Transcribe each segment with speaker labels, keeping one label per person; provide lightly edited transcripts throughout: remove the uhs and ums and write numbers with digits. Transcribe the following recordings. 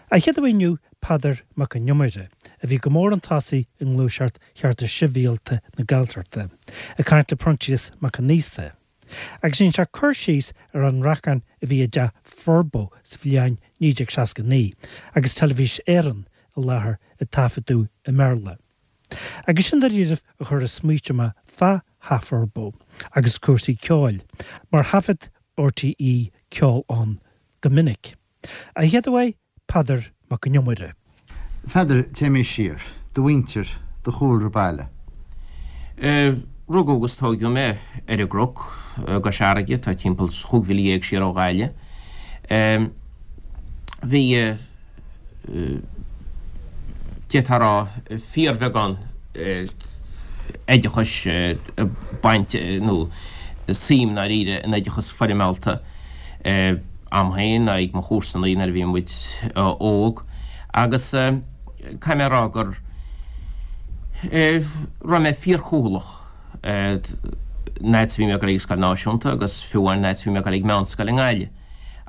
Speaker 1: An chéad aoi inniu Peadar Mac an Iomaire, a bhí go mór chun tosaigh i ngluaiseacht Chearta Sibhialta na Gaeltachta, ag caint le Proinsias Mac Con Íosa. Agus dhein sé cur síos ar an rachán a bhí i dTeach Furbo sa bhliain 1969 agus Teilifís Éireann i láthair ag taifeadadh i mBéarla. Agus sin dáiríribh a chuir ag smaoitiú mé fá Theach Furbo agus cúrsaí ceoil, mar thaifead RTÉ ceol ann go minic. An chéad aoi, Peadar Mac an Iomaire.
Speaker 2: A Pheadair, téimís siar. Do mhuintir, do chúlra baile.
Speaker 3: Rugadh agus tóigeadh mé ar an gCnoc i gCois Fharraige, atá timpeall chúig mhíle dhéag siar ó Ghaillimh. Bhí, d'fhéadfá a rá, fíorbheagán oideachais baint nó suim ndáiríre in oideachas foirmeálta. a'm féin ná ag mo chomharsanaí nuair a bhí muid óg agus caithfidh mé a rá go raibh mé fíorchúthaileach an fhad is a bhí mé ag dul ag an scoil náisiúnta agus fiú amháin an fhad is a bhí mé ag dul ag meánscoil i nGaillimh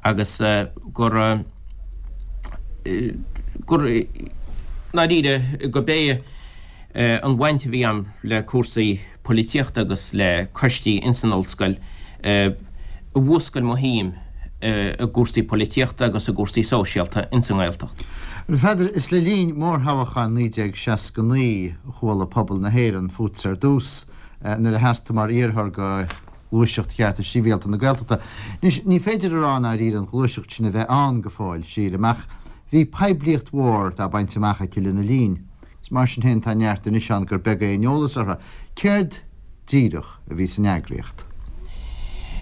Speaker 3: agus gur gur ndáiríre go b'é an bhaint a bhí a'm le cúrsaí polaitíochta agus le coistí ins an ollscoil a mhúscail mo shuim i gcúrsaí polaitíochta agus i gcúrsaí sóisialta ins an nGaeltacht.
Speaker 2: A Pheadair, is le linn mórthoghcháin 1969 a chuala pobal na hÉireann fútsa ar dtús, nuair a sheas tú mar iarrthóir go Gluaiseacht Chearta Sibhialta na Gaeltachta. Anois, ní féidir a rá i ndáiríre an ghluaiseacht sin a bheith ann go fóill, sílim, ach bhí poiblíocht mhór dá baint amach aici lena linn. Is mar sin féin tá neart anois ann gur beag é an eolas orthu. Céard díreach a bhí san eagraíocht?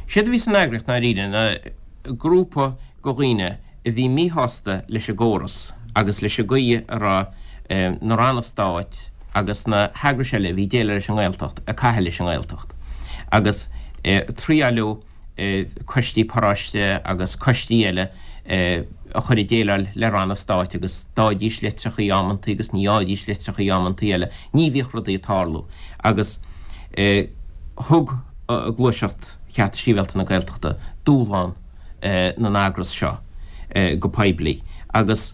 Speaker 3: Séard a bhí san eagraíocht ndáiríre ná grúpa de dhaoine a bhí míshásta leis an gcóras agus leis an gcaoi a raibh na ranna stáit agus na heagrais eile a bhí ag déileáil leis an nGaeltacht ag caitheamh leis an nGaeltacht agus triaileadh coistí paróiste agus coistí eile a chur ag déileáil le ranna stáit agus d'fhaighidís litreachaí amantaí agus ní fhaighidís litreachaí amantaí eile. Ní bhíodh rudaí ag tarlú agus thug Gluaiseacht Chearta Sibhialta na Gaeltachta dúshlán na n-eagras seo go poiblí agus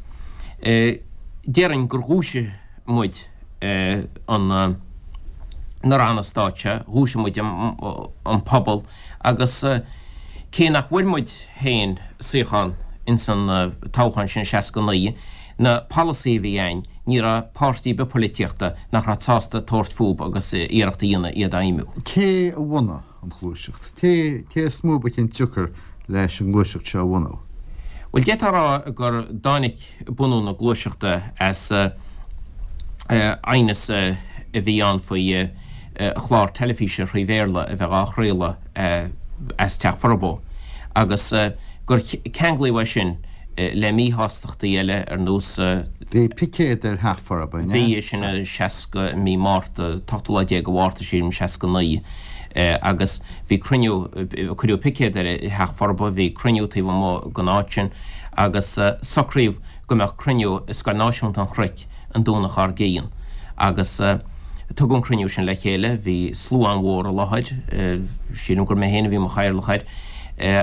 Speaker 3: déarfainn gur dhúisigh muid an na ranna stáit seo, dhúisigh muid an pobal agus cé nach bhfuair muid féin suíochán ins an toghchán sin i 69, na polasaithe a bhí a'inn, ní raibh páirtí ar bith poilitíochta nach raibh sásta tabhairt fúb agus iarracht a dhéanamh iad a fheidhmiú.
Speaker 2: Cé a bhunaigh an ghluaiseacht? Cé cé is mó ba chionsiocair leis an ngluaiseacht seo a bhunú?
Speaker 3: Bhuel, d'fhéadfá a rá gur dtáinig bunú na gluaiseachta as aighneas a bhí ann faoi chlár teilifíse thrí Bhéarla a bheith á chraoladh as Teach Furbo agus gur ceanglaíodh é sin le míshástachtaí eile ar nós.
Speaker 2: Bhí picéad ar Theach Furbo, an ea?
Speaker 3: Bhí, sin i 60, mí Márta, t-ochtú lá déag de Mhárta, sílim, 69 agus bhí cruinniú, cuireadh picéad ar Theach Furbo, bhí cruinniú taobh amuigh den áit sin agus socraíodh go mbeadh cruinniú i Scoil Náisiúnta an Chnoic an Domhnach dár gcionn agus tugadh an cruinniú sin le chéile, bhí slua an-mhór i láthair, sílim gur mé féin a bhí i mo chathaoirleach air,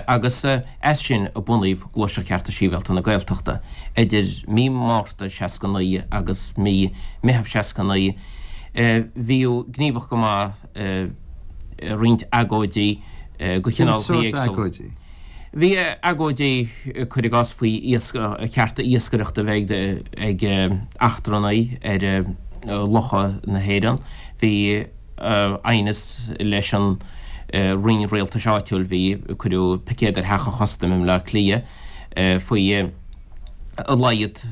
Speaker 3: agus as sin a bunaíodh Gluaiseacht Chearta Sibhialta na Gaeltachta. Idir mí Márta 69 agus mí Meitheamh 69 bhíodh gníomhach go maith i roinnt agóidí de
Speaker 2: chineálacha éagsúla.
Speaker 3: Bhí agóidí, cuir i gcás, faoi chearta iascaireachta a bheith ag eachtrannaigh ar locha na hÉireann. Bhí aighneas leis an Roinn Rialtais Áitiúil, bhí, cuireadh picéad ar Theach an Chustaim i mBleá Cliath faoi a laghad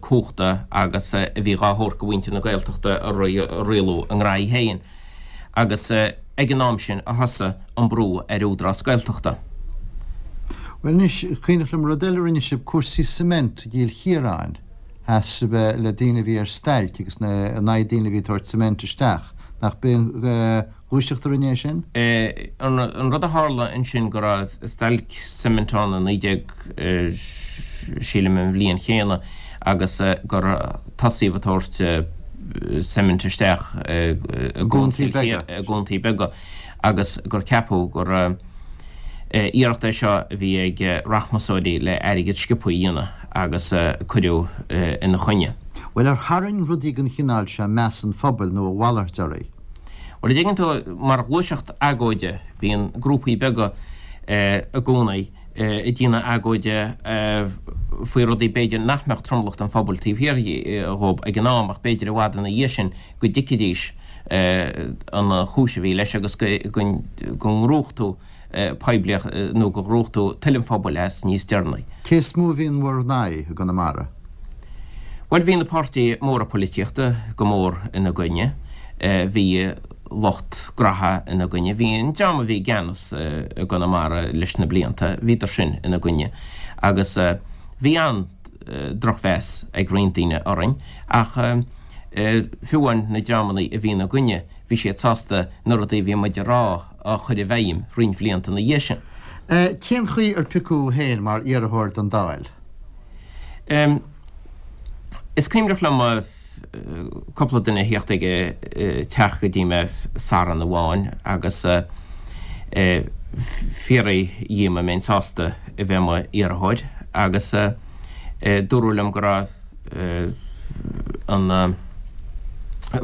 Speaker 3: cumhachta agus a bhí dhá thabhairt go mhuintir na Gaeltachta a rialú a ngraithí féin. agus ag an am sin a thosaigh an brú ar Údarás Gaeltachta.
Speaker 2: Bhuel anois, cuimhneach liom rud eile a rinne sibh, cúrsaí cement i gCill Chiaráin. Sheas sibh le daoine a bhí ar stailc agus in aghaidh daoine a bhí ag tabhairt cement isteach. Nach b'é an ghluaiseacht a rinne é sin?
Speaker 3: An rud a tharla ansin go raibh stailc cement ann i 19, sílim an bhliain chéanna agus gur tosaíodh ag tabhairt cement isteach i gcuantaí beaga agus gur ceapadh gur. Iarracht é seo a bhí ag rachmasóirí le airgead sciobtha a dhéanamh agus cuireadh ina choinne.
Speaker 2: Bhuel, ar tharraing rudaí den chineál seo meas an phobail nó a mhalairt oraibh?
Speaker 3: Bhuel, a dtuigeann tú, mar ghluaiseacht agóide, bíonn grúpaí beaga i gcónaí ag déanamh agóide faoi rudaí b'fhéidir nach mbeadh tromlach den phobal taobh thiar dhóib ag an am ach b'fhéidir i bhfad ina dhiaidh sin go dtuigfidís an chúis a bhí leis agus go ngnóthódh tú poiblíocht nó go ngnóthódh tú toil an phobail as níos deireanaí.
Speaker 2: Cé is mó a bhí in bhur n-aghaidh i gConamara?
Speaker 3: Bhuel, bhí na páirtithe móra poilitíochta go mór ina gcoinne. Bhí lucht graithe ina gcoinne. Bhí an dream a bhí i gceannas i gConamara leis na blianta, bhíodar sin ina gcoinne. Agus bhí an-drochmheas ag roinnt daoine orainn ach fiú amháin na dreamanna a bhí ina gcoinne, bhí siad sásta na rudaí a bhí muid a rá a chur i bhfeidhm roinnt bhlianta ina dhiaidh sin.
Speaker 2: Cén chaoi ar piocadh thú féin mar iarrthóir don Dáil?
Speaker 3: Is cuimhneach liom cúpla duine a theacht ag an teach go dtí mé Satharn amháin agus fiafraí dhíom an mbeinn sásta a bheith i mo iarrthóir agus dúradh liom go raibh an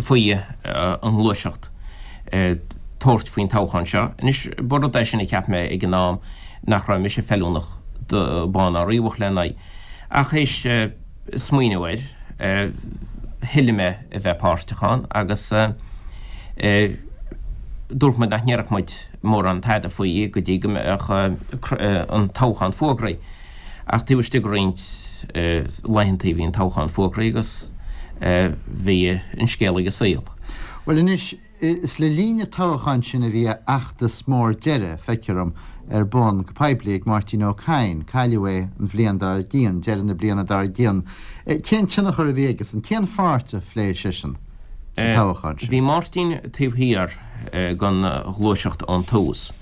Speaker 3: faoi an ngluaiseacht tabhairt faoin toghchán seo. Anois, ba rud é sin a cheap mé ag an am nach raibh mise feiliúnach do bán ná riabhach lena aghaidh. Ach théis smaoineamh air, thoiligh mé a bheith páirteach ann agus dúirt muid nach ndéarfadh muid mórán tada faoi go dtí go mbeadh an toghchán fógraithe. Ach taobh istigh de roinnt laethanta bhí an toghchán fógraithe agus bhí an scéal ag an saol.
Speaker 2: Bhuel anois, is le linn an toghcháin sin a bhí a fheachtas mór deiridh, feictear dom, ar bun go poiblí ag Máirtín Ó Cadhain. Cailleadh é an bhliain dár gcionn, deireadh na bliana dár gcionn. Cén tionchar a bhí aigesan? Cén pháirt a phléigh seisean sa toghchán sin?
Speaker 3: Bhí Máirtín taobh thiar den ghluaiseacht ón tús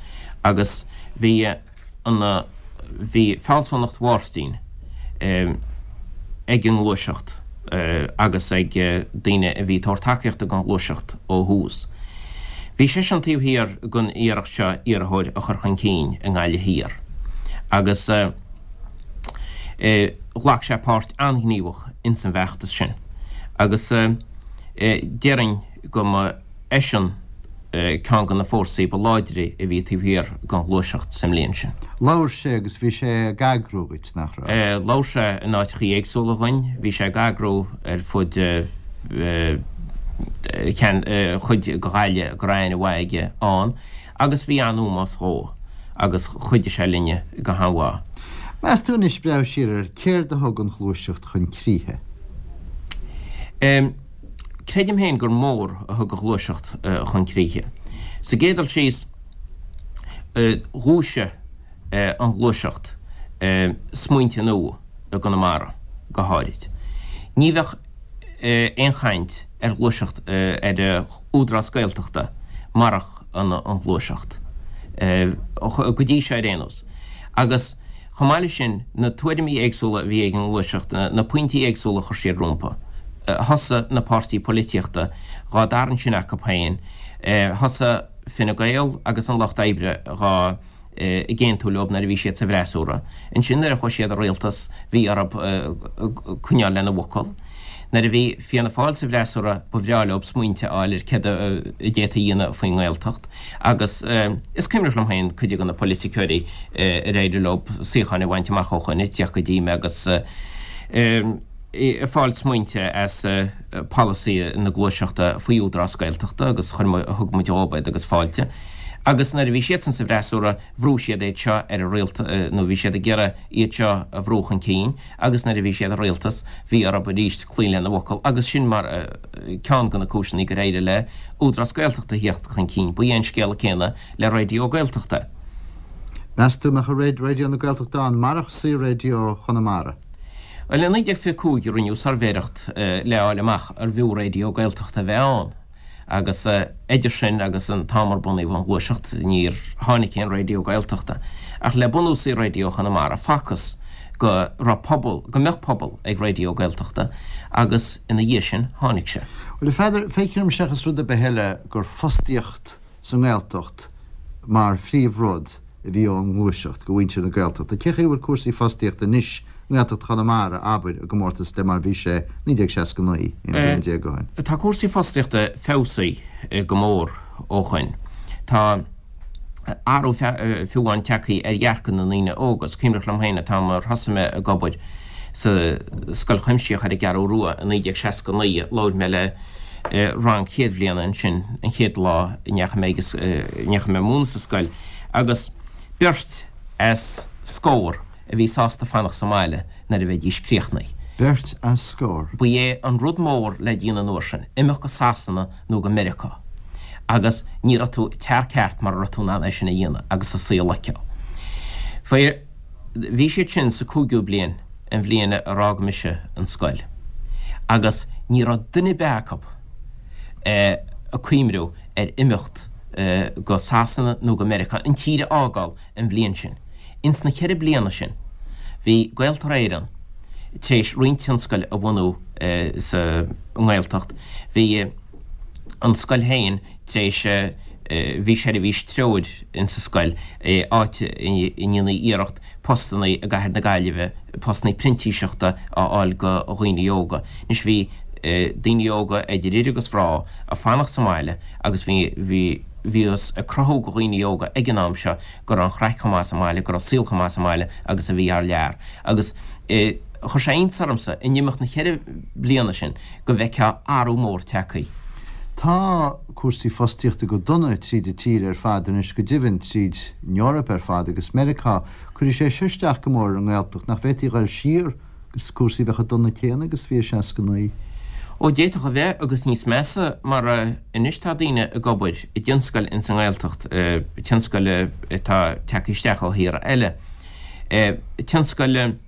Speaker 3: agus bhí an Bhí fealsúnacht Mháirtín ag an ngluaiseacht agus ag daoine a bhí ag tabhairt tacaíochta don ghluaiseacht ó thús. Bhí seisean taobh thiar den iarracht seo iarrthóir a chur chun cinn i nGaillimh Thiar agus ghlac sé páirt an-ghníomhach ins an bhfeachtas sin agus déarfainn go mba eisean ceann de na fórsaí ba láidre a bhí taobh thiar den ghluaiseacht sa mbliain sin.
Speaker 2: Labhair sé agus bhí sé ag eagrú dhuit, nach
Speaker 3: raibh? Labhair sé in áiteachaí éagsúla dhuinn. Bhí sé ag eagrú ar fud chuid de Ghaillimh go raibh aithne mhaith aige ann agus bhí an-ómós dhó agus chuidigh sé linne go han-mhaith.
Speaker 2: Meas tú anois, breathnú siar air, céard a thug an ghluaiseacht chun críche?
Speaker 3: Creidim féin gur mór a thug an ghluaiseacht chun críche. Sa gcéad dul síos, dhúisigh an ghluaiseacht smaointe nua i gConamara go háirid. Ní bheadh aon chaint ar ghluaiseacht ar Údarás Gaeltachta marach an ghluaiseacht, go dtí seo ar aon nós. Agus chomh maith leis sin, na tuairimí éagsúla a bhí ag an ngluaiseacht, na pointí éagsúla a chuir siad rompu. Thosaigh na páirtí poilitíochta dhá dtarraingt sin acu féin. Thosaigh Fine Gael agus an Lucht Oibre dhá ag aontú leo nuair a bhí siad sa bhfreasúra. Ansin nuair a chuaigh siad i rialtas bhí orthu coinneáil lena bhfocal. Nuair a bhí Fianna Fáil sa bhfreasúra ba bhreá leo smaointe a fháil ar céard a d'fhéadfaí a dhéanamh faoin nGaeltacht agus is cuimhneach liom féin cuid de na poiliticeoirí ar éirigh leo suíocháin a bhaint amach ó shoin ag tíocht go dtí mé agus ag fáil smaointe as polasaí na gluaiseachta faoi Údarás Gaeltachta agus chuir thug muid dhóibh iad agus fáilte. Agus nuair a bhí siadsan sa bhfreasúra bhrúigh siad iad seo ar an rialtas nó bhí siad ag iarraidh iad seo a bhrú chun cinn agus nuair a bhí siad i rialtas bhí orthu arís cloí lena bhfocal agus sin mar ceann de na cúiseanna gur éirigh le Údarás Gaeltachta a theacht chun cinn. Ba é an scéal céanna le Raidió Gaeltachta.
Speaker 2: Meas tú an mbeadh Raidió na Gaeltachta ann marach Saor-Raidió Chonamara?
Speaker 3: Bhuel i 1925 rinneadh suirbhéireacht le fháil amach arbh fhiú Raidió Gaeltachta a bheith ann. Agus idir sin agus an t-am ar bunaíodh an Ghluaiseacht, níor tháinig aon Raidió Gaeltachta. Ach le bunú Saor-Raidió Chonamara, facthas go raibh pobal, go mbeadh pobal ag Raidió Gaeltachta agus ina dhiaidh sin, tháinig sé.
Speaker 2: Bhuel, a Pheadair, feictear dom seachas rud ar bith eile gur fostaíocht sa nGaeltacht mar phríomhrud. a bhí ón ngluaiseacht go mhuintir na Gaeltachta. Cé chaoi a bhfuil cúrsaí fostaíochta anois i nGaeltacht Chonamara, abair, i gcomórtas le mar a bhí sé 1969, 11 bliain ó
Speaker 3: shin? Tá cúrsaí fostaíochta feabhsaithe go mór ó shoin. Tá athrú fiú amháin tagtha ar dhearcadh na ndaoine óga. Is cuimhneach liom féin an t-am ar thosaigh mé ag obair sa Scoil Chuimsitheach ar an gCeathrú Rua i 1969, labhair mé le rang chéad bhliana ansin an chéad lá a ndeachaigh mé agus ndeachaigh mé ag múineadh sa scoil agus beirt as scór a bhí sásta fanacht sa mbaile nuair a bheidís críochnaithe.
Speaker 2: Beirt as scór.
Speaker 3: Ba é an rud mór le déanamh an uair sin, imeacht go Sasana nó go Meiriceá agus ní raibh tú tear ceart mara raibh tú in ann é sin a dhéanamh agus an saol a fheiceáil. Faoi. Bhí siad sin sa cúigiú bliain an bhliain ar fhág mise an scoil agus ní raibh duine ar bith acu ag cuimhniú ar imeacht go Sasana nó go Meiriceá, an tír a fhágáil an bhliain sin. Ins na cheithre bliana sin bhí Gaeltarra Éireann tar éis roinnt tionscail a bhunú sa nGaeltacht, bhí an scoil féin tar éis, bhí seirbhís treoir insa scoil, áit a ndéantaí iarracht postanna i gcathair na Gaillimhe, postanna printíseachta a fháil go dhaoine óga. Anois bhí daoine óga idir fhir agus mhná ag fanacht sa mbaile agus bhí, bhí, bhíothas ag cruthú go dhaoine óga ag an am seo go raibh an chraic chomh maith sa mbaile, go raibh saol chomh maith sa mbaile agus a bhí thar lear. Agus chuir sé iontas ormsa in imeacht na cheithre bliana sin go bhfeicfeá athrú mór tagtha.
Speaker 2: Tá cúrsaí fostaíochta go dona tríd an tír ar fad anois, go deimhin tríd an Eoraip ar fad agus Meiriceá. Cuirfidh sé seo isteach go mór ar an nGaeltacht. Nach bhféadfaí a dhul siar agus cúrsaí a bheith chomh dona céanna agus a bhí i 69?
Speaker 3: Ó d'fhéadfadh a bheith agus níos measa mar anois tá daoine ag obair i dtionscail ins an nGaeltacht, tionscail atá tagtha isteach ó thíortha eile, tionscail,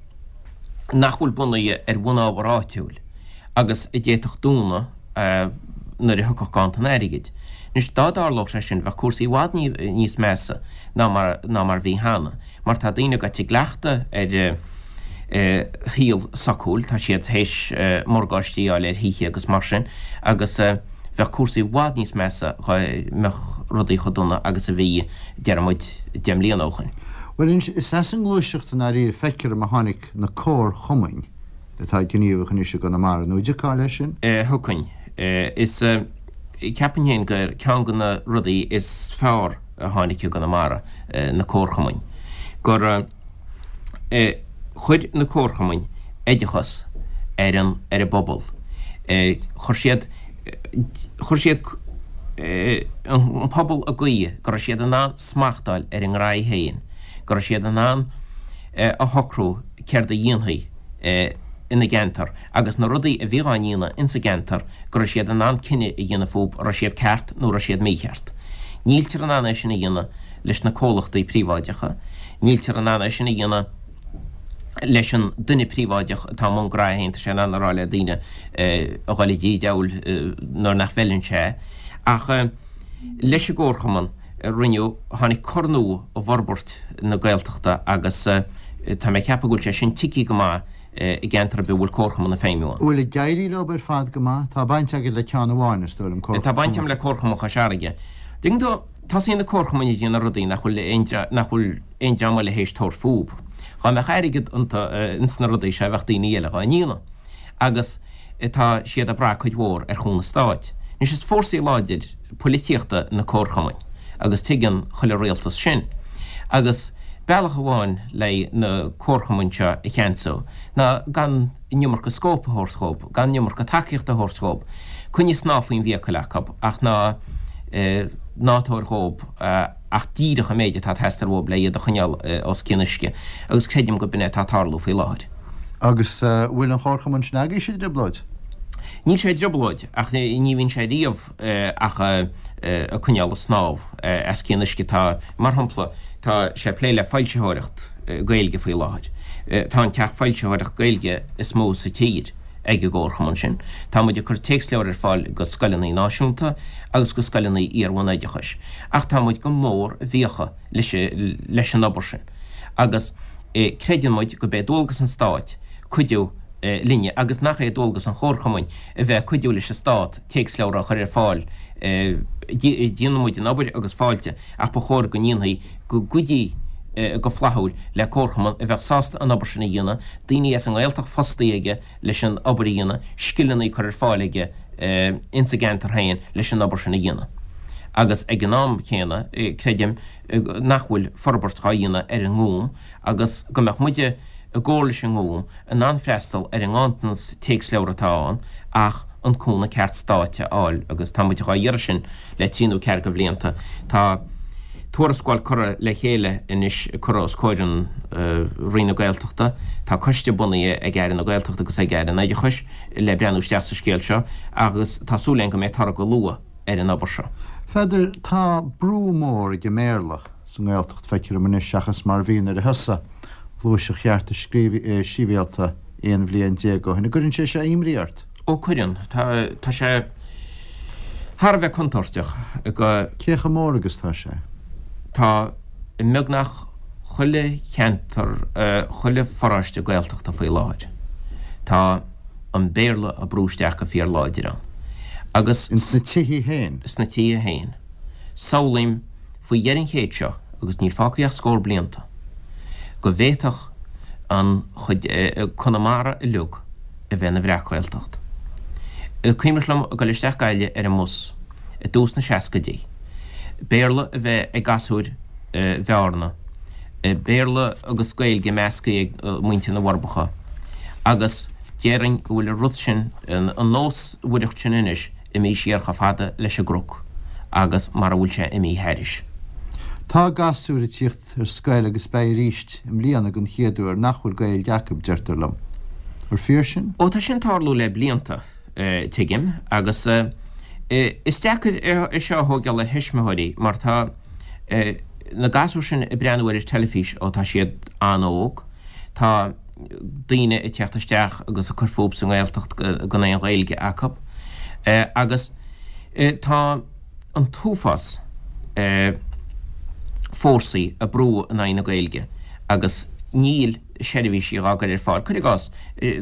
Speaker 3: nach bhfuil bunaithe ar bhunábhar áitiúil agus a d'fhéadfadh dúnadh nuair a thiocfadh ganntan airgid. Anois, dá dtarlódh sé sin, bheadh cúrsaí i bhfad níos measa ná mar ná mar bhí cheana, mar tá daoine gaibhte i gcleachtadh ar shaol socúil, tá siad théis morgáistí a fháil ar thithe agus mar sin, agus bheadh cúrsaí i bhfad níos measa dhá mbeadh rudaí chomh dona agus a bhí, deir muid, 10 mbliana ó shoin.
Speaker 2: Bhuel anois, is as an ngluaiseacht i ndáiríre feictear dom a tháinig na comharchumainn atá gníomhach anois i gConamara, nó an dtiocfá leis sin?
Speaker 3: Thiocfainn. Is, ceapaim féin gur ceann de na rudaí is fearr a tháinig i gConamara, na comharchumainn. Gur chuir na comharchumainn oideachas ar an, ar an bpobal. Chuir siad, chuir siad an pobal i gcaoi go raibh siad in ann smacht a fháil ar a ngraithe féin, go raibh siad in ann a shocrú céard a dhéanfaí ina gceantar agus na rudaí a bhí á ndéanamh insa gceantar, go raibh siad in ann cinneadh a dhéanamh fúb, raibh siad ceart nó raibh siad mícheart. Níltear in ann é sin a dhéanamh leis na comhlachtaí príobháideacha, níltear in ann é sin a dhéanamh leis an duine príobháideach atá i mbun graithe féin, tá sé in ann a rá le daoine a dhul i dtí diabhail nuair nach bhfeileann sé. Ach leis an gcomharchumann, rinneadh, tháinig cor nua i bhforbairt na Gaeltachta agus tá mé ag ceapadh go bhfuil sé sin tigthe go maith i gceantar ar bith a bhfuil comharchumann ag feidhmiú
Speaker 2: ann. Bhfuil ag éirí leo ar fad go maith? Tá baint agat le ceann amháin, is dóigh liom,
Speaker 3: Comharchumann. Tá baint agam le Comharchumann Chois Fharraige. Tuigeann tú, tosaíonn na comharchumainn ag déanamh rudaí nach bhfuil aon, nach bhfuil aon dream eile théis tabhairt fúb. Dhá mbeadh airgead iontu, ins na rudaí seo, bheadh daoine eile dhá ndéanamh. Agus tá siad ag brath cuid mhór ar chúnamh stáit. Anois is fórsaí láidir poilitíochta na comharchumainn agus tuigeann chuile rialtas sin. Agus bealach amháin le na comharchumainn seo a cheansú ná gan an iomarca scóip a thabhairt dhób, gan an iomarca tacaíochta a thabhairt dhób. Coinnigh snáth faoin bhfiacail acu ach ná ná tabhair dhób ach díreach an méid atá ag teastáil uathub le iad a choinneáil os cionn uisce agus creidim go b'in é atá ag tarlú faoi láthair.
Speaker 2: Agus bhfuil an chomharchumann sin agaibhse i dtrioblóid?
Speaker 3: Níl sé i dtrioblóid, ach ní bhíonn sé riamh ach ag coinneáil ag snámh os cionn uisce. Tá, mar shampla, tá sé ag plé le foilsitheoireacht Gaeilge faoi láthair. Tá an teach foilsitheoireacht Gaeilge is mó sa tír ag an gcomharchumann sin. Tá muid ag cur téacsleabhar ar fáil go scoileanna náisiúnta agus go scoileanna iar-bhunoideachais. Ach tá muid go mór i bhfiacha leis an obair sin agus creideann muid go b'é dualgas an Stáit cuidiú linne agus nach é dualgas an chomharchumainn a bheith ag cuidiú leis an Stát téacsleabhra a chur ar fáil. Déanann muid an obair agus fáilte ach ba chóir go ndéanfaí, go gcuideofaí. go flaithiúil le comharchumann a bheadh sásta an obair sin a dhéanamh, daoine as an nGaeltacht fostaithe aige leis an obair a dhéanamh, scileanna curtha ar fáil aige ins an gceantar féin leis an obair sin a dhéanamh. Agus ag an am céanna, creidim nach bhfuil forbairt dhá dhéanamh ar an nGúm agus go mbeadh muide i gcomhar leis an nGúm in ann freastal ar an nganntanas téacsleabhar atá ann ach an cúnamh ceart stáit a fháil agus tá muid dhá iarraidh sin le trí nó ceathair de bhlianta. Tá tuarascáil curtha le chéile anois curtha os comhair an Roinn na Gaeltachta. Tá coiste bunaithe ag Aire na Gaeltachta agus ag Aire an Oideachais le breathnú isteach sa scéal seo agus tá súil againn go mbeidh toradh go luath ar an obair seo.
Speaker 2: Pheadair, tá brú mór ag an mBéarla sa nGaeltacht, feictear dom anois, seachas mar a bhí nuair a thosaigh Gluaiseacht Chearta Sibhialta 11 bhliain ó shin. An gcuireann sé seo imní ort?
Speaker 3: Ó cuireann. Tá, tá sé thar a bheith contúirteach
Speaker 2: go. Cé chomh mór agus tá sé?
Speaker 3: Tá i mbeagnach chuile cheantar, chuile pharóiste Gaeltachta faoi láthair. Tá an Béarla á brú isteach go fíorláidir ann.
Speaker 2: Agus. Ins na tithe féin?
Speaker 3: Sna tithe féin. Samhlaím faoi dheireadh an chéid seo, agus níl fágtha ach scór blianta, go bhféadfadh an chuid, Conamara uilig a bheith ina bhreac-Ghaeltacht. Cuimhneach liom ag dul isteach Gaillimh ar an mbus i dtús na seascaidí, Béarla a bheith ag gasúir Bhearna, Béarla agus Gaeilge measctha ag muintir na bhForbacha, agus déarfainn go bhfuil an rud sin, an nósmhaireacht sin anois, imithe siar chomh fada leis an gCnoc agus mar a bhfuil sé imithe thairis.
Speaker 2: Tá gasúir ag tíocht ar scoil agus beidh arís i mbliana den chéad uair nach bhfuil Gaeilge acu, deirtear liom. Ar fíor sin?
Speaker 3: Ó tá sin ag tarlú le blianta, tuigim, agus is deacair é seo a thóigeáil ar thuismitheoirí mar tá na gasúir sin ag breathnú ar an teilifís ó tá siad an-óg. Tá daoine ag teacht isteach agus ag cur fúthu sa nGaeltacht gan aon Ghaeilge acu agus tá an t-uafás fórsaí ag brú in aghaidh na Gaeilge agus níl seirbhísí dhá gcur ar fáil. Cuir i gcás,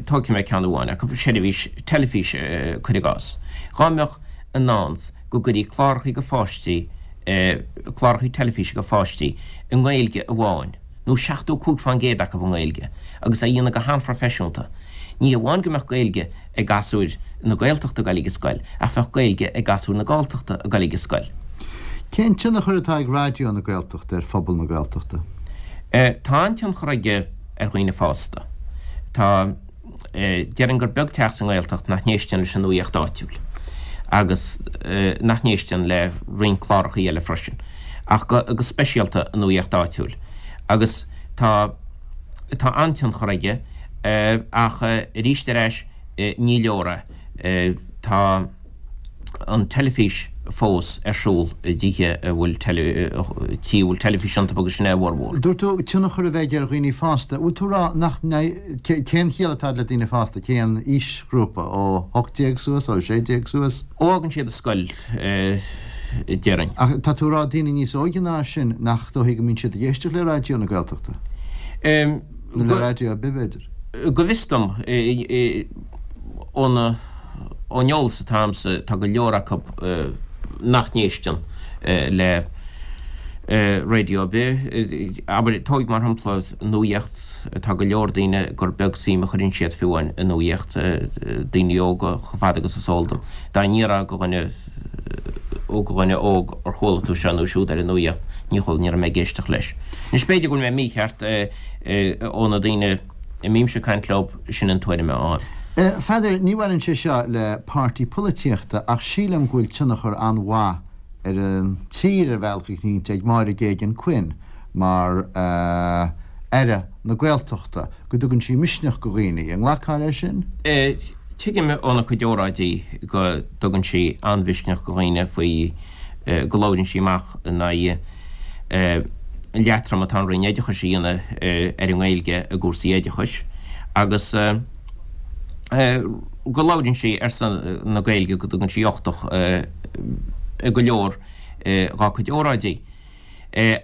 Speaker 3: tógfaidh mé ceann amháin acu, seirbhís teilifíse, cuir i gcás. Dhá mbeadh i ndán go gcuirí clárachaí do pháistí, clárachaí teilifíse do pháistí i nGaeilge amháin, nó 75% acu i nGaeilge, agus á dhéanamh go han-phroifeisiúnta. Ní hamháin go mbeadh Gaeilge ag gasúir na Gaeltachta ag dul ag an scoil, ach bheadh Gaeilge ag gasúir na Galltachta ag dul ag an scoil.
Speaker 2: Cén tionchar atá ag Raidió na Gaeltachta ar phobal na Gaeltachta?
Speaker 3: Tá an-tionchar aige ar dhaoine fásta. Tá. Déarfainn gur beag teach sa nGaeltacht nach n-éisteann leis an nuaíocht áitiúil agus nach n-éisteann le roinnt clárachaí eile freisin, ach go speisialta an nuaíocht áitiúil. Agus tá tá an-tionchar aige ach arís ar ais ní leor é. Tá. an teilifís fós ar siúl i dtithe a bhfuil tithe a bhfuil teilifís iontu agus sin é a bhformhór.
Speaker 2: Dúirt tú tionchar a bheith aige ar dhaoine fásta. Bhfuil tú ag rá nach mbeidh, cén chiall atá le daoine fásta, cén aoisghrúpa, ó 18 suas, ó 16 suas?
Speaker 3: Ó fhágann siad an scoil, déarfainn.
Speaker 2: Ach tá tú ag rá daoine níos óige ná sin nach dóichí go mbíonn siad ag éisteacht le Raidió na Gaeltachta? Nó le raidió ar bith, b'fhéidir?
Speaker 3: Go bhfios dom, ón eolas atá agamsa, tá go leor acu nach n-éisteann le raidió ar bith. Abair, tóig mar shampla nuaíocht, tá go leor daoine gur beag suim a chuireann siad fiú amháin i nuaíocht, daoine óga, chomh fada agus is eol dom. Dá n-iarrfá go dhuine, ó go dhuine óg ar chuala tú seo nó siúd ar an nuaíocht, ní chuala, ní raibh mé ag éisteacht leis. Anois b'fhéidir go bhfuil mé mícheart, ó na daoine a mbímse ag caint leo, sin an tuairim atá ann.
Speaker 2: Pheadair, ní bhaineann sé seo le páirtí polaitíochta ach sílim go bhfuil tionchar an-mhaith ar an tír ar bhealach eicínt ag Máire Geoghegan Quinn mar Aire na Gaeltachta, go dtugann sí misneach go dhaoine. An nglacfá leis sin?
Speaker 3: Tuigim óna cuid óráidí go dtugann sí an-mhisneach go dhaoine faoi go labhraíonn sí amach in aghaidh an leatrom atá an Roinn Oideachais a dhéanamh ar an nGaeilge i gcúrsaí oideachais agus go labhraíonn sí ar son na Gaeilge, go dtugann sí uchtach i go leor dhá cuid óráidí.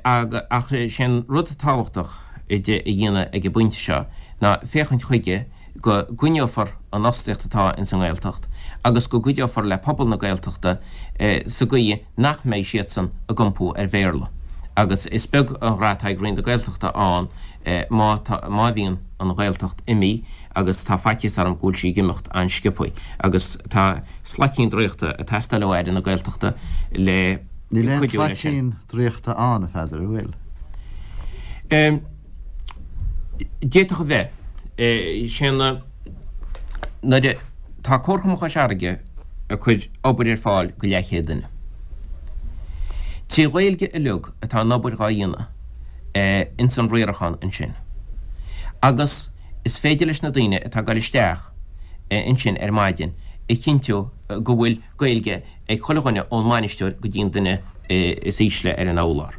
Speaker 3: Ach sé an rud tábhachtach di a dhéanamh ag an bpointe seo ná féachaint chuige go gcoinneofar an fhostaíocht atá ins an nGaeltacht agus go gcuideofar le pobal na Gaeltachta sa gcaoi nach mbeidh siadsan ag iompú ar Bhéarla. Agus is beag an rath atá ag Roinn na Gaeltachta ann má tá, má bhíonn an Ghaeltacht imithe agus tá faitíos orm go bhfuil sí ag imeacht an-sciobtha agus tá slaitín draíochta ag teastáil ó Aire na Gaeltachta le
Speaker 2: Níl aon cuidiú leis sin. tslaitín draíochta ann, a Pheadair, an bhfuil?
Speaker 3: D'fhéadfadh a bheith. Sé na, nuair a, tá Comharchumann Chois Fharraige ag cur obair ar fáil go leathchéad duine. 3 Ghaeilge uilig atá an obair dhá dhéanamh ins an riarachán ansin. Agus is féidir leis na daoine atá ag dul isteach ansin ar maidin a chinntiú go bhfuil Gaeilge ag chuile dhuine ón mbainisteoir go dtí an duine is ísle ar an urlár.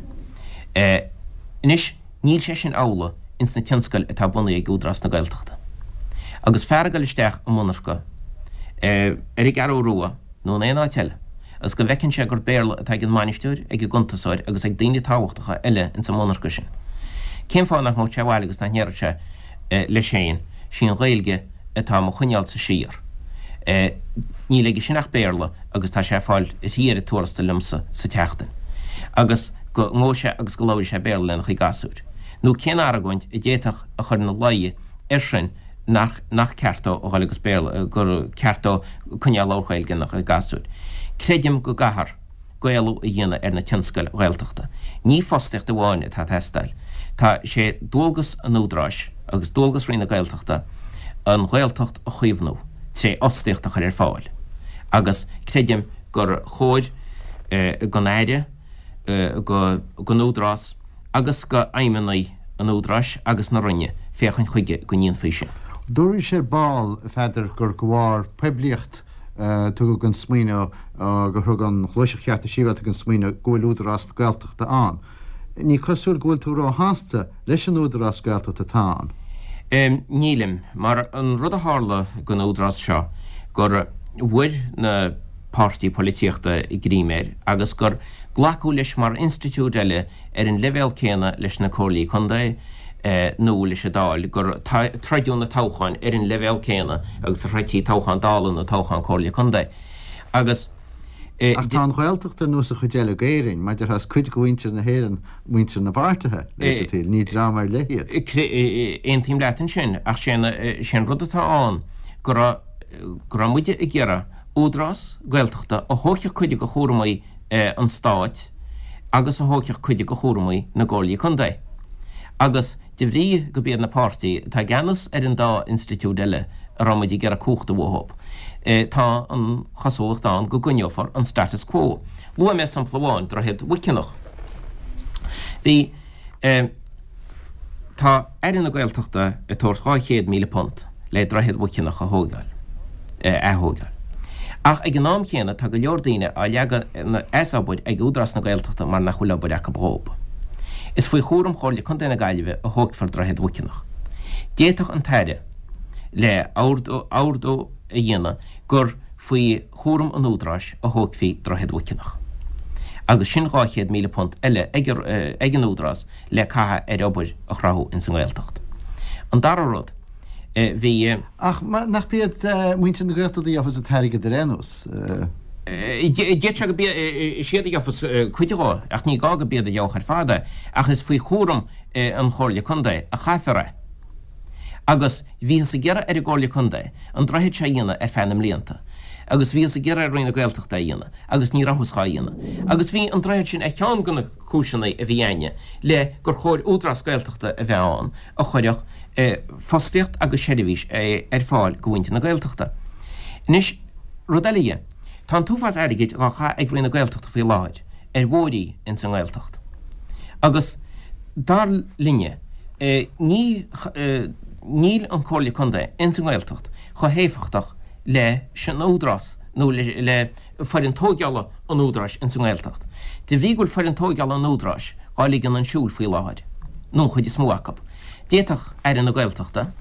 Speaker 3: Anois níl sé sin amhlaidh ins na tionscail atá bunaithe ag Údarás na Gaeltachta. Agus fear ag dul isteach i monarcha ar an gCeathrú Rua nó in aon áit eile agus go bhfeiceann sé gur Béarla atá ag an mbainisteoir, ag an gcuntasóir agus ag daoine tábhachtacha eile ins an monarcha sin, cén fáth nach ngabhfadh sé abhaile agus nach ndéarfadh sé leis féin, 'Sí an Ghaeilge atá mo choinneálsa siar. Níl aige sin ach Béarla agus tá sé ag fáil thrí oiread tuarastail liomsa sa tseachtain. Agus go ngabhfaidh sé agus go labhraíonn sé Béarla lena chuid gasúir. Nó cén argóint a d'fhéadfadh a chur ina luí air sin nach nach ceart dó a dhul agus Béarla, gur ceart dó coinneáil ag labhairt Gaeilge lena chuid gasúir. Creidim go gcaithfear. Gaelú a dhéanamh ar na tionscail Ghaeltachta. Ní fostaíocht amháin atá ag teastáil. Tá sé dualgas an Údaráis agus dualgas Roinn na Gaeltachta an Ghaeltacht a chaomhnú tré fhostaíocht a chur ar fáil agus creidim gur chóir don Aire, don Údarás agus do fheidhmeannaigh an Údaráis agus na Roinne féachaint chuige go ndéanfaí sin.
Speaker 2: Dúraís ar ball, a Pheadair, gur de bharr poiblíocht tugadh an smaoineamh, gur thug an Ghluaiseacht Chearta Sibhialta an smaoineamh go bhfuil Údarás Gaeltachta ann. Ní cosúil go bhfuil tú róshásta leis an Údarás Gaeltachta atá
Speaker 3: ann. Nílim, mar an rud a tharla don Údarás seo gur bhfuair na páirtí polaitíochta greim air agus gur glacadh leis mar institiúid eile ar an leibhéal céanna leis na Comhairlí Contae nó leis an Dáil, gur troideadh na toghcháin ar an leibhéal céanna agus a throidtí toghchán Dála nó toghchán Comhairle Contae. Agus.
Speaker 2: Ach tá an Ghaeltacht ar nós an chuid eile d'Éirinn, mar déarfá is cuid de mhuintir na hÉireann muintir na bpáirtithe, leis an tsaol, ní dream ar leith
Speaker 3: iad. Aontaím leat ansin, ach sé an rud atá ann go raibh, go raibh muide ag iarraidh Údarás Gaeltachta a thógfadh cuid de chúramaí an Stáit agus a thógfadh cuid de chúramaí na gComhairlí Contae. Agus de bhrí go b'iad na páirtí atá i gceannas ar an dá institiúid eile a raibh muid ag iarraidh cumhacht uathub, tá an chosúlacht ann go gcoinneofar an status quo. Luaigh mé sampla amháin, Droichead Mhuiceanach. Bhí. Tá Aire na Gaeltachta ag tabhairt £200,000 le Droichead Mhuiceanach a thóigeáil, a ath-thóigeáil. Ach ag an am chéanna tá go leor daoine á leagan as obair ag Údarás na Gaeltachta mar nach bhfuil obair acu dhób. Is faoi chúram Chomhairle Contae na Gaillimhe a thógfar Droichead Mhuiceanach. D'fhéadfadh an tAire le ordú a dhéanamh gur faoi chúram an Údaráis a thógfaí Droichead Mhuiceanach. Agus sin £200,000 eile ag an Údarás le caitheamh ar obair a chruthú ins an nGaeltacht. An dara rud, bhí.
Speaker 2: Ach nach b'iad muintir na Gaeltachta a gheofas an t-airgead ar aon nós?
Speaker 3: D'fhéadfadh sé go b'iad a gheofas cuid dhó, ach ní gá go b'iad a gheobhadh ar fad é, ach is faoi chúram an Chomhairle Contae a chaithfear é. Agus bhíothas ag iarraidh ar an gComhairle Contae an droichead seo a dhéanamh ar feadh na mblianta. Agus bhíothas ag iarraidh ar Roinn na Gaeltachta é a dhéanamh, agus ní rabhthas dhá dhéanamh. Agus bhí an droichead sin ar cheann de na cúiseanna a bhí a'inne le gur chóir Údarás Gaeltachta a bheith ann a chuirfeadh fostaíocht agus seirbhís ar fáil go mhuintir na Gaeltachta. Anois, rud eile dhe, tá an t-uafás airgid dhá chaitheamh ag Roinn na Gaeltachta faoi láthair ar bhóithrí ins an nGaeltacht. Agus dar linne, ní, níl an Comhairle Contae ins an nGaeltacht chomh héifeachtach leis an Údarás nó le foireann tóigeála an Údaráis ins an nGaeltacht. De bhrí go bhfuil foireann tóigeála an Údaráis dhá ligean chun siúil faoi láthair, nó an chuid is mó acu, d'fhéadfadh Aire na Gaeltachta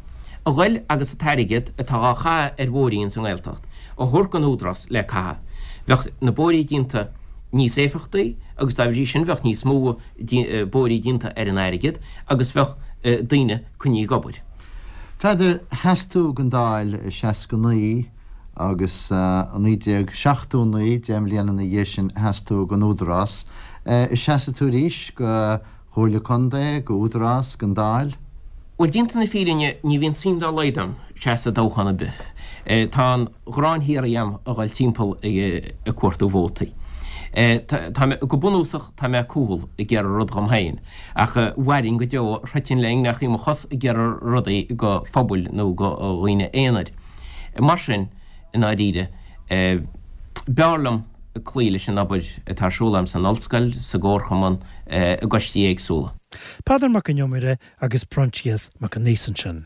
Speaker 3: a ghoil agus an t-airgead atá dhá chaitheamh ar bhóithrí ins an nGaeltacht a thabhairt don Údarás le caitheamh. Bheadh na bóithrí déanta níos éifeachtaí agus dá bhrí sin bheadh níos mó bóithrí déanta ar an airgead agus bheadh daoine coinnithe ag obair.
Speaker 2: Pheadair, sheas tú don Dáil i 69 agus i 1979, 10 mbliana ina dhiaidh sin, sheas tú don Údarás. An seasfaidh tú arís go Chomhairle Contae, go Údarás, gon Dáil?
Speaker 3: Bhuel, déanta na fírinne, ní bhíonn suim dá laghad a'm seasamh i dtoghchán ar bith. Tá an ghráin shíoraí a'm a dhul timpeall ag cuartú vótaí. Tá mé, go bunúsach, tá mé cúthail ag iarraidh rud dhom féin, ach mhairfinn go deo, throidfinn le ingne mo chos ag iarraidh rudaí go phobail nó go dhaoine aonair. Mar sin, i ndáiríre, b'fhearr liom cloí leis an obair atá ar siúl agam san ollscoil, sa gcomharchumann, i gcoistí éagsúla.
Speaker 1: Peadar Mac an Iomaire agus Proinsias Mac an Aois ansin.